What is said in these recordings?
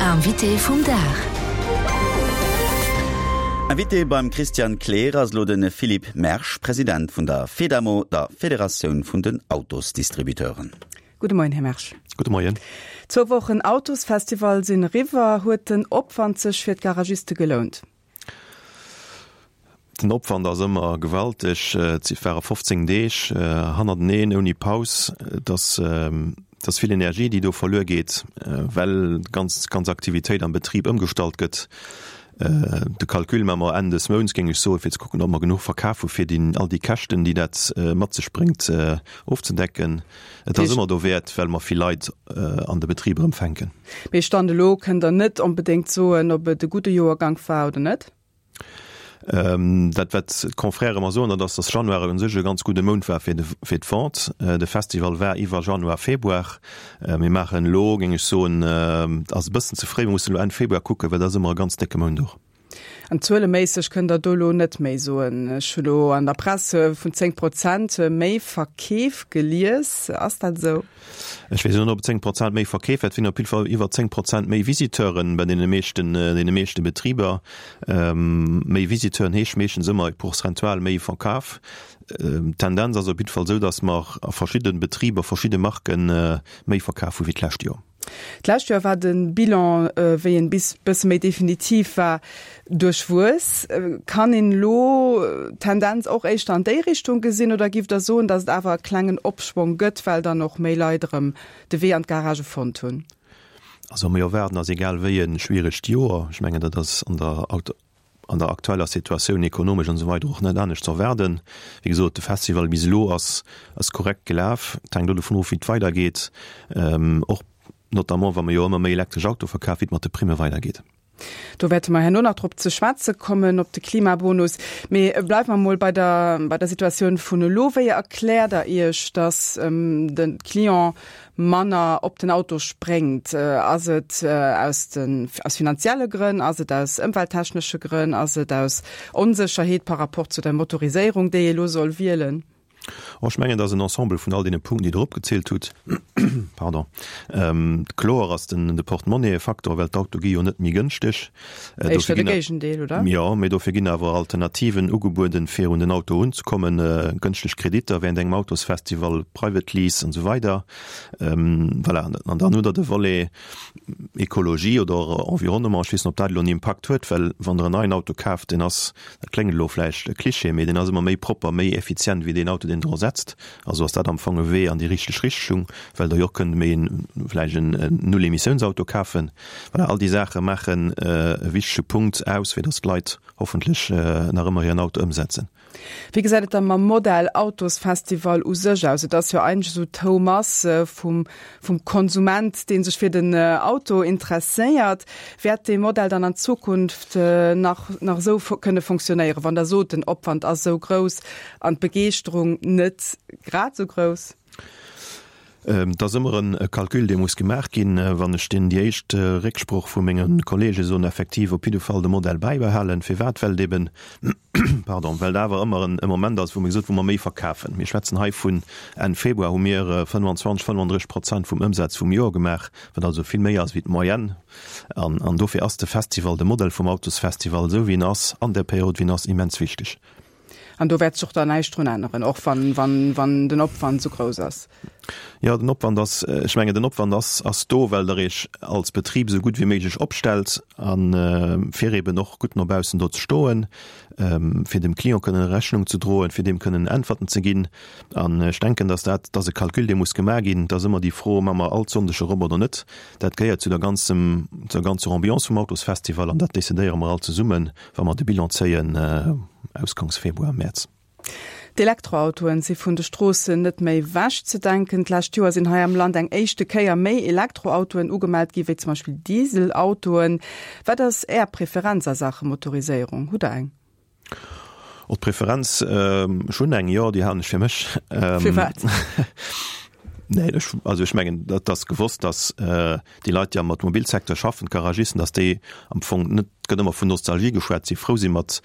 Invité vum Dag. Invité beim Christian Kleer ass elo de Philippe Mersch, President vun der Fedamo, der Federatioun vun den Autosdistributeuren. Gudde Moien, Här Mersch. Gudde Moien. Zwou Wochen Autosfestival sinn eriwwer. Huet den Opwand sech fir d'Garagiste gelount? Den Opwand ass ëmmer gewalteg. Et ware 15 Deeg hannerteneen ouni Paus. Et ass, et ass vill Energie, déi do verluer geet, well d'ganz, ganz Aktivitéit am Betrib ëmgestallt gëtt. De Calcul maache mer Enn des Mounts, géing ech soen, fir ze kucken, ob mer genuch verkaf hu fir déi, all déi Käschten, déi dat mat sech bréngt, ofzedecken. Et ass ëmmer dowäert, well mer vill Leit an de Betrib erëm fänken. Mee Stand elo kënnt Der net onbedéngt soen, ob et e gudde Joergank war oder net? Dat wat d'Confrèrë mer soen, dat ass, datt Januar u sech e ganz gudde Mount war fir fir d'Vente. De Festival war iwwer Januar, Februar. Mir maachen elo, géing ech soen, ass e bëssen ze fréi, mir mussen elo Enn Februar kucken, well dat ass ëmmer e ganz décke Mount och. An zueleméisseg kënnt Der do elo net méi soen. Ech hu lo an der Press vun 10 Prozent méi Verkeef gelies. Ass dat esou? Ech weess elo net, ob et 10 Prozent méi Verkeef war. Et sinn op jidde Fall iwwer 10 Prozent méi Visiteuren bei deene meeschten, deene meeschte Betriber. Méi Visiteuren heescht meeschtens ëmmer prozentual méi Verkaf. D'Tendenz ass op jidde Fall esou, datt mer a verschidde Betriber, verschidde Marken méi verkaf hu wéi d'lescht Joer. D'lescht Joer war de Bilan, wéi en bis bësse méi definitiv war, duerchwuess. Kann een elo d'Tendenz och éischter an déi Richtung gesinn oder giff Der soen, datt et awer e klengen Opschwong gëtt, well dann och méi Leit erëm de Wee an d'Garagë fonnt hunn? Also mir erwaarden ass egal wéi e schwieregt Joer. Ech mengen dat ass an der an der aktueller Situatioun ekonomesch an esou weider och net anescht ze erwaarden. Wéi gesot, de Festival bis elo ass ass korrekt gelaf. Et hänkt elo dovun of, wéi et weidergeet, och notamment wa mer jo ëmmer méi elektresch Auto verkafen, wéi et mat de Primme weidergeet. Do wäerte mer herno nach drop ze schwätze kommen, op de Klimabonus. Mee bleiwe mer mol bei der bei der Situatioun vun elo. Wéi erkläert Der Iech, datt de Client manner op den Auto spréngt? Ass et aus den, aus finanzielle Grënn, ass et aus ëmwelttechnesche Grënn, ass et aus Onsécherheet par rapport zu der Motoriséierung, déi ee lo soll wielen? Oh, ech mengen, et ass en Ensemble vun all deene Punkten, déi Der opgezielt hutt. Pardon. Kloer ass den, de Portemonnaie e Faktor, well d'Auto gi jo net méi gënschteg. Éischter de Géigendeel, oder? Jo, mee dofir ginn awer Alternativen ugebueden, fir un den Auto erunzekommen, gënschteg Kreditter während engem Autosfestival, Private Lease an esou weider. Voilà, an dann hutt Der de Volet Ekologie oder Environnement. Ech weess net, ob dat elo en Impakt huet, well wann Der en neien Auto kaaft, deen ass, dat kléngt elo vläicht Klischee, mee deen ass ëmmer méi propper, méi effizient wéi deen Auto, deen Der ersetzt. Also ass dat am Fong e Wee an déi richteg Richtung, well Der jo och kënnt méi en, vläicht en Null-Emissiouns-Auto kafen. Voilà, all déi Saache maachen e wichtege Punkt aus, fir datt d'Leit hoffentlech nach ëmmer hiren Auto ëmsetzen. Wéi gesäit et da mam Modell Autosfestival u sech aus? Et ass jo eigentlech esou d'Houmass vum, vum Konsument, dee sech fir den Auto interesséiert. Wäert dee Modell dann an Zukunft nach, nach esou kënne fonctionnéieren, wann Der sot, den Opwand ass esou grouss an d'Begeeschterung net grad esou grouss? Et ass ëmmer e Calcul, dee muss gemaach ginn. Wann ech deen, déi éischt Récksproch vu menge Kollege soen, effektiv op jidde Fall de Modell bäibehalen. Firwat? Well et eben, pardon, well et awer ëmmer e Moment ass, wou mir gesot, wou mer méi verkafen. Mir schwätzen hei vun Enn Februar hu mir 25, 35 Prozent vum Ëmsaz vum Joer gemaach, wat also vill méi ass wéi d'Moyenne. An, an dofir ass de Festival, de Modell vum Autosfestival, esou wéi en ass, an där Period wéi en ass, immens wichteg. An do wäert sech och dann näischt drun änneren, och wann, wann, wann den Opwand esou grouss ass. Jo, den Opwand ass, ech mengen, den Opwand ass, ass do, well Der Iech als Betrib esou gutt wéi méiglech opstellt a fir eeben och gutt no baussen do ze stoen, fir dem Client kënnen Rechnung ze droen, fir deem kënnen Äntwerten ze ginn. An ech denken, dass dat, dat ass e Calcul, dee muss gemaach ginn. Et ass ëmmer déi Fro, Maache mer all Sonndeg erop oder net? Dat gehéiert zu der ganzem, zur ganzer Ambiance vum Autosfestival an dat decidéiere mer all zesummen. Wa mer de Bilan zéien, Ausgangs Februar, Mäerz. D'Elektroautoen si vun de Stroossen net méi wech ze denken. D'lescht Joer sinn hei am Land eng éischte Kéier méi Elektroautoen ugemellt gi wéi zum Beispill Dieselautoen. Wat ass Är Preferenz a Saache Motoriséierung? Hutt Der eng? Oh, d'Preferenz, ech hunn eng, jo, déi halen ech fir mech. Firwat? Nee, ech, also ech mengen, dat ass gewosst, datt déi Leit, déi am Automobilsecteur schaffen, d'Garagisten, datt déi am Fong net. Et gëtt ëmmer vun Nostalgie geschwat, si frou si mat,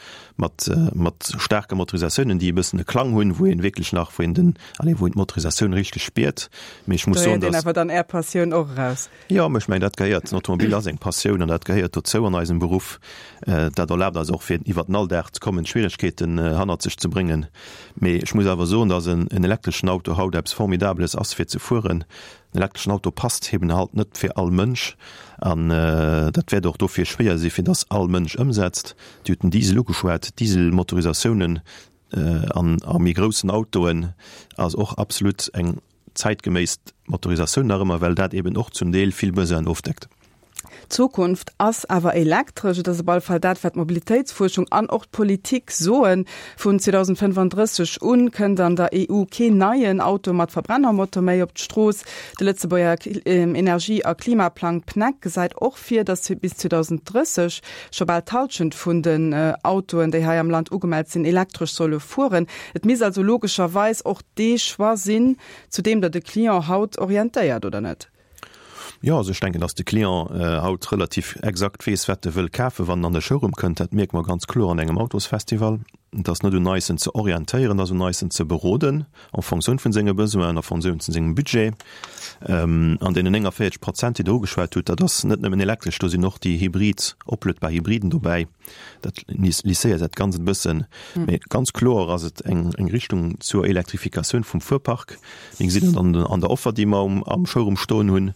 mat, mat staarke Motorisatiounen, déi e bëssen e Klang hunn, wou een wierklech nach, wou een den, allez, wou een d'Motorisatioun richteg spiert. Mee ech muss soen, dass. Do héiert een awer dann Är Passioun och eraus. Jo, mä ech mengen, dat gehéiert, den Automobil ass eng Passioun an dat gehéiert dozou an eisem Beruff. Dat erlaabt eis och, fir iwwer den Alldag ze kommen, d'Schwieregkeeten hannert sech ze bréngen. Mee ech muss awer soen, dass en elektreschen Auto haut eppes Formidabeles ass, fir ze fueren. En elektreschen Auto passt eben halt net fir all Mënsch an dat wäert och dofir schwéier si fir dass all Mënsch ëmsetzt. Dir hutt den Diesel ugeschwat, Dieselmotorisatiounen an a méi groussen Autoen ass och absolut eng zäitgeméiss Motorisatioun nach ëmmer, well dat eben och zum Deel vill Besoinen ofdeckt. D'Zukunft ass awer elektresch. Et ass op alle Fall dat, wat d'Mobilitéitsfuerschung an och d'Politik soen. Vun 2035 un kënnt an der EU keen neien Auto mat Verbrennermotor méi op d'Strooss. De Lëtzebuerger Energie a Klimaplang PNEC gesäit och vir, datt bis 2030 scho bal d'Hallschent vun den Autoen, déi hei am Land ugemellt sinn, elektresch solle fueren. Et misst also logescherweis och dee Choix sinn, zu deem der de Client haut orientéiert, oder net? Jo, also ech denken, dass de Client haut relativ exakt weess, wat e wëll kafen, wann en an de Showroom kënnt. Dat mierke mer ganz kloer an engem Autosfestival. Et ass net un eis, en ze orientéieren, et ass un eis, en ze beroden en Fonctioun vun senge Besoinen, en Fonctioun vun sengem Budget. An deenen 49 Prozent, déi Der ugeschwat hutt, dat ass net nëmmen elektresch, do sinn och déi hybrid, opluedbar Hybriden dobäi. Dat lisséiert dat Ganzt e bëssen. Mee ganz kloer ass et eng Richtung zur Elektrifikatioun vum Fuerpark. Mir gesinn dat an der Offer, déi mer am Showroom stoen hunn.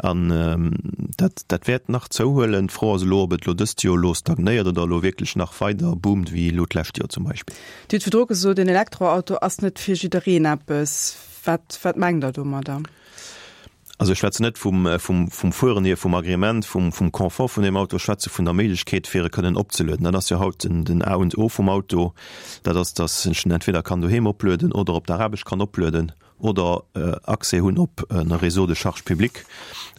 An dat, dat wäert nach zouhuelen. D'Fro ass elo, ob et elo dëst Joer elo stagnéiert oder elo wierklech nach weider boomt, wéi elo d'lescht Joer zum Beispill. Dir hutt virdru gesot, en Elektroauto ass net fir jiddereen eppes. Wat, wat mengt Der domadder? Also ech schwätzen net vum, vum, vum Fueren hier, vum Agrément, vum, vum Confort vun deem Auto, ech schwätze vun der Méiglechkeet, fir e kënnen opzelueden. Dat ass jo haut den, den A und O vum Auto, dat ass, dass ech en entweder kann doheem oplueden oder op der Aarbecht kann oplueden oder Accès hunn op e Réseau de charge publique.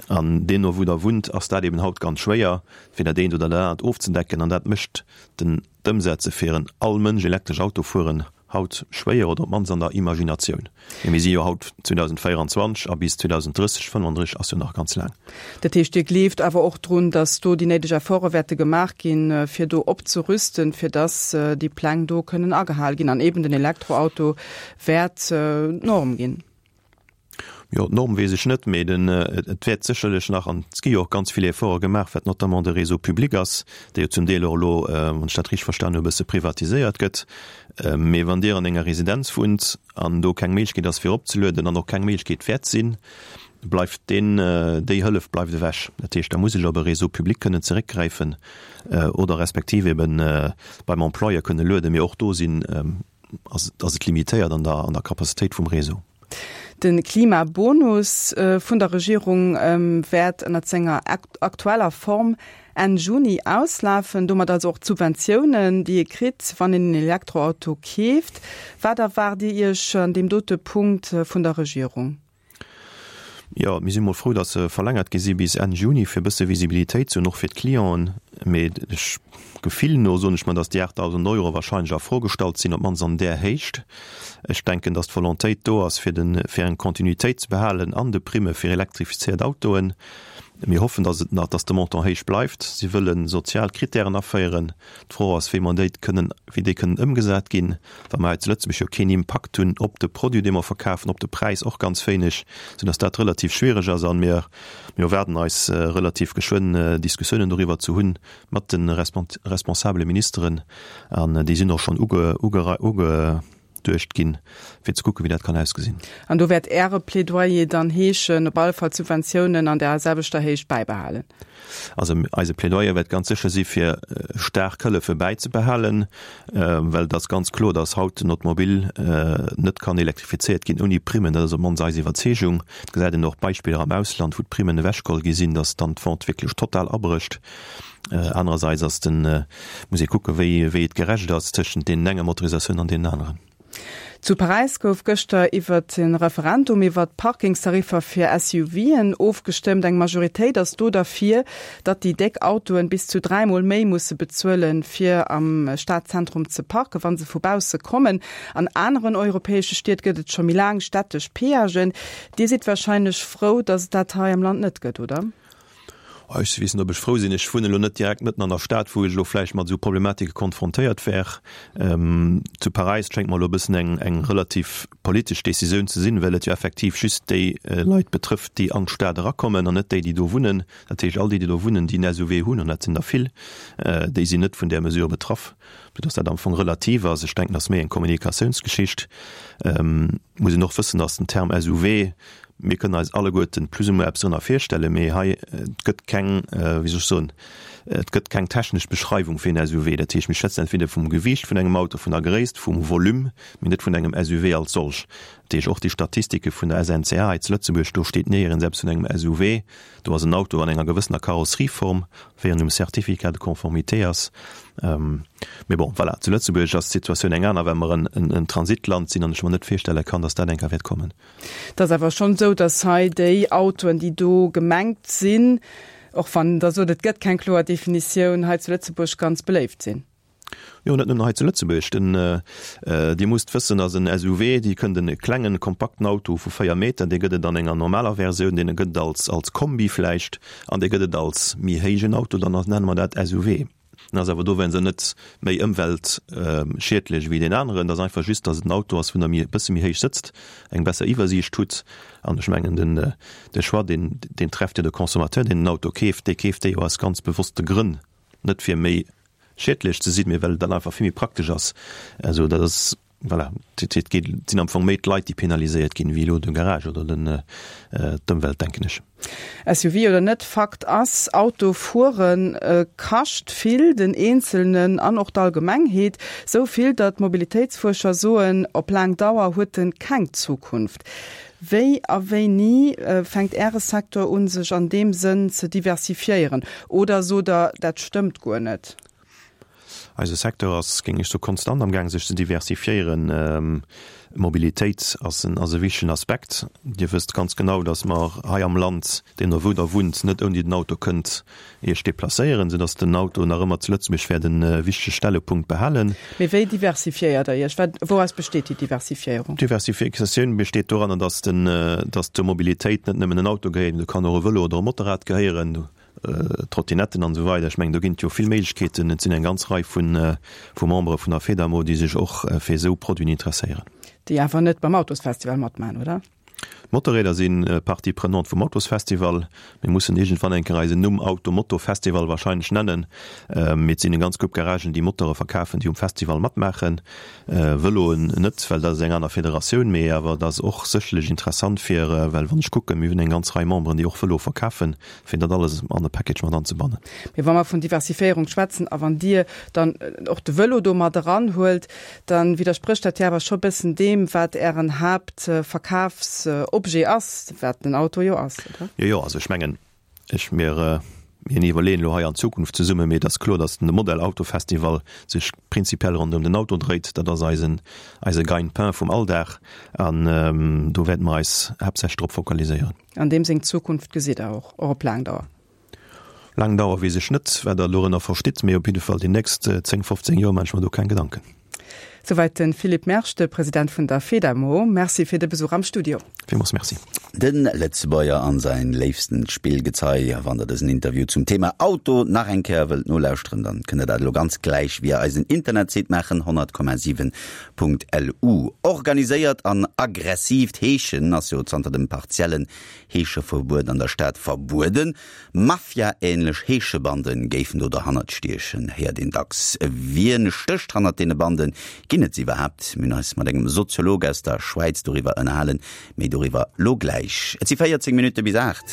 An deemno wou Der wunnt, ass dat eben haut ganz schwéier, fir dat eent oder dat anert ofzedecken. An dat mécht den, d'Ëmsetze fir en all Mënsch elektresch Auto fueren haut schwéier, oder op d'mannst an der Imaginatioun. Mee mir si jo haut 2024 a bis 2030, 35 ass jo nach ganz laang. Dat heescht, Dir gleeft awer och drun, datt do déi néideg Efforte wäerte gemaach ginn, fir do opzerüsten, fir datt déi Pläng do kënnen agehal ginn an eeben den Elektroauto wäert d'Norm ginn? Jo, d'Norm weess ech net, mee den, et wäert sécherlech nach, an et gi jo och ganz vill Efforte gemaach, wat notamment de Réseau public ass, dee jo zum Deel och elo, wann ech dat richteg verstan hu, e bësse privatiséiert gëtt. Mee wann Dir an enger Residenz wunnt an do keng Méiglechkeet ass fir opzelueden an och keng Méiglechkeet wäert sinn, bleift deen, déi Hëllef bleift ewech. Dat heescht, da muss ech op e Réseau public kënnen zeréckgräifen oder respektiv eben beim Employeur kënne lueden. Mee och do sinn, ass et limitéiert an der, an der Capacitéit vum Réseau. De Klimabonus vun der Regierung wäert ënnert senger aktueller Form Enn Juni auslafen. Domat also och d'Subventiounen, déi ee kritt, wann een en Elektroauto keeft. Wat erwaart Dir Iech an deem dote Punkt vun der Regierung? Jo, mir si mol frou, datt se verlängert gi si bis Enn Juni, fir e bësse Visibilitéit ze hunn, och fir d'Clienten. Mee ech, Gefill no soen ech mer, datt déi 8.000 Euro wahrscheinlech a Fro gestallt sinn, op d'mannst an där Héicht. Ech denken, datt d'Volontéit do ass, fir den, fir eng Kontinuitéit ze behalen an de Primme fir elektrifizéiert Autoen. Mir hoffen, datt et nach, datt de Montant héich bleift. Si wëlle sozial Krittären aféieren. D'Fro ass, wéi mer déi kënnen, wéi déi kënnen ëmgesat ginn, well mer hei zu Lëtzebuerg jo keen Impakt hunn op de Produit, dee mer verkafen, op de Präis och ganz wéineg, soudass dat relativ schwierig ass. A mir, mir erwaarden eis relativ geschwënn Diskussiounen doriwwer ze hunn mat de responsabele Ministeren, an déi sinn och schonn uge, uge, uge, duecht ginn, fir ze kucken, wéi dat kann ausgesinn. An do wäert Äre Plädoyer dann heeschen, op alle Fall d'Subventiounen an där selwechter Héicht bäibehalen? Also eise Plädoyer wäert ganz sécher si fir staark Hëllefe bäizebehalen, well et ass ganz kloer, datt haut den Automobil net kann elektrifizéiert ginn ouni Primmen. Dat ass op d'mannst eis Iwwerzeegung. Et gesäit een och Beispiller am Ausland, wou d'Primmen ewechgeholl gi sinn, datt dann d'Vente wierklech total abrécht. Anerersäits ass den, muss ee kucken, wéi, wéi et gerecht ass tëschent deenen enger Motorisatioun an deenen aneren. Zu Paräis gouf gëschter iwwert e Referendum iwwert d'Parkingstariffer fir SUVen ofgestëmmt. Eng Majoritéit ass do derfir, datt déi déck Autoen bis zu 3 Mol méi musse bezuelen, fir am Stadzentrum ze parken, wa se vu bausse kommen. An aneren europäesche Stied gëtt et scho méi laang stättesch Peagen. Dir sidd warscheinlech frou, datt et dat hei am Land net gëtt, oder? Ech weess net, ob ech frou sinn. Ech wunnen elo net direkt mëtten an der Stad, wou ech elo vläicht mat esou Problematike konfrontéiert wär. Zu Paräis schéngt mer elo e bëssen eng, eng relativ politesch Decisioun ze sinn, well et jo effektiv just déi Leit betrëfft, déi an d'Stad erakommen an net déi, déi do wunnen. Dat heescht, all déi, déi do wunnen, déi en SUV hunn, an dat sinn der vill, déi sinn net vun där Mesure betraff, soudass dat am Fong relativ ass. Ech denken, dat ass méi eng Kommunikatiounsgeschicht. Muss een och wëssen, dass den Term SUV, mir kënnen eis alleguerten plus ou moins eppes drënner virstellen, mee hei, et gëtt keng, wéi soll ech soen, et gëtt keng technesch Beschreiwung fir en SUV. Dat heescht, mir schwätzen entweder vum Gewiicht vun engem Auto, vun der Gréisst, vum Volume, mee net vun engem SUV als solch. Dat heescht, och déi Statistike vun der SNCA hei zu Lëtzebuerg, do steet néierens eppes vun engem SUV. Do ass en Auto an enger gewëssener Karosserieform, wéi en um Certificat de conformité ass. Mee bon, voilà, zu Lëtzebuerg ass d'Situatioun eng aner, well mer en Transitland sinn an ech mer net virstelle kann, datt dat eng Kéier wäert kommen. Et ass awer schonn esou, datt hei déi Autoen, déi do gemengt sinn, och wann Der sot, et gëtt keng kloer Definitioun, hei zu Lëtzebuerg ganz beléift sinn. Jo, net nëmmen hei zu Lëtzebuerg. Den, Dir musst wëssen, dass en SUV, Dir kënnt en klengen, kompakten Auto vu 4 Meter, dee gëtt et an enger normaler Versioun, dee gëtt et als, als Kombi vläicht an dee gëtt et als méi héijen Auto, dann nenne mer dat SUV. En ass awer dowéinster net méi ëmweltschiedlech wéi deen aneren. Et ass einfach just, dass et en Auto ass, wou Der méi, e bësse méi héich sëtzt, eng besser Iwwersiicht hutt. An ech mengen, den, de Choix, deen, deen trefft jo de Consommateur, deen den Auto keeft, dee keeft dee jo aus ganz bewosste Grënn, net fir méi schiedlech ze sinn, mee well et dann einfach vill méi praktesch ass. Also dat ass, voilà, et et geet, et sinn am Fong méi d'Leit, déi penaliséiert ginn, wéi elo de Garage oder den, d'Ëmwelt, denken ech. SUV oder net, Fakt ass, Auto fuere kascht vill, den Eenzelnen an och d'Allgemengheet. Sou vill, datt Mobilitéitsfuerscher soen, op laang Dauer huet en keng Zukunft. Wéi a wéini fänkt Äre Secteur un, sech an deem Sënn ze diversifiéieren? Oder sot Der, dat stëmmt guer net? Eise Secteur ass, géing ech soen, konstant amgaang sech ze diversifiéieren. Mobilitéit ass en ass e wichtegen Aspekt. Dir wësst ganz genau, datt mer hei am Land, deemno wou Der wunnt, net ouni den Auto kënnt Iech deplacéieren, soudass den Auto nach ëmmer zu Lëtzebuerg wäert e wichtege Stellepunkt behalen. Mee wéi diversifiéiert Der Iech? Wat, wouraus besteet déi Diversifiéierung? D'Diversifikatioun besteet doranner, dass den, dass zur Mobilitéit net nëmmen en Auto gehéiert, mee do kann och e Vëlo oder e Motorrad gehéieren, Trottinetten an esou weider. Ech mengen, do ginn et jo vill Méiglechkeeten. Et sinn eng ganz Rei vu, vu Membere vun der Fedamo, déi sech och fir esou Produiten interesséieren. Déi awer net beim Autosfestival matmaachen, oder? D'Motorräder si Partie prenante vum Autosfestival. Mir mussen iergendwann eng Kéier eisen Numm Auto-Moto Festival wahrscheinlech nennen. Mee et sinn eng ganz Grupp Garagen, déi Motore verkafen, déi um Festival matmaachen. Vëloen net, well dat ass eng aner Federatioun. Mee awer et ass och sécherlech interessant fir, well wann ech kucken, mir hunn eng ganz Rei Memberen, déi och Vëlo verkafen, fir dat alles an e Package mat anzebannen. Mee wa mer vun Diversiféierung schwätzen a wann Dir dann och de Vëlo do mat eranhuelt, Dann widdersprécht dat jo awer scho bëssen deem, wat Ären Haaptverkafsobjet ass, wat den Auto jo ass, oder? Jo, jo, also ech mengen, ech, mir, mir iwwerleeën elo hei an Zukunft zesummen, mee et ass kloer, datt de Modell Auto Festival sech prinzipiell ronderëm den Auto dréit. Dat ass eisen, eise Gagne-pain vum Alldag an do wäerte mer eis haaptsächlech drop fokaliséieren. An deem seng Zukunft gesitt Der och, och op laang Dauer? Laang Dauer weess ech net, wat Der dorënner verstitt, mee op jidde Fall déi nächst 10, 15 Joer maache ech mer do keng Gedanken. Souwäit de Philippe Mersch, de President vun der Fedamo. Merci fir de Besuch am Studio. Villmools Merci. De Lëtzebuerger an säin léifstent Spillgezei. Wann der dësen Interview zum Thema Auto nach eng Kéier wëllt nolauschteren, dann kënnt der dat elo ganz gläich via eisen Internetsite maachen, 100,7.lu. Organiséiert an aggressiivt Heeschen ass jo zanter dem partiellen Heescheverbuet an der Stad verbueden. Mafia-ähnlech Heeschebande géifen do derhannert stiechen, héiert een dacks. Wien stécht hannert deene Banden? Ginn et se iwwerhaapt? Mir hunn eis mat engem Soziolog aus der Schwäiz doriwwer ënnerhalen. Méi doriwwer lo gläich. Et si 14 Minutte bis 8.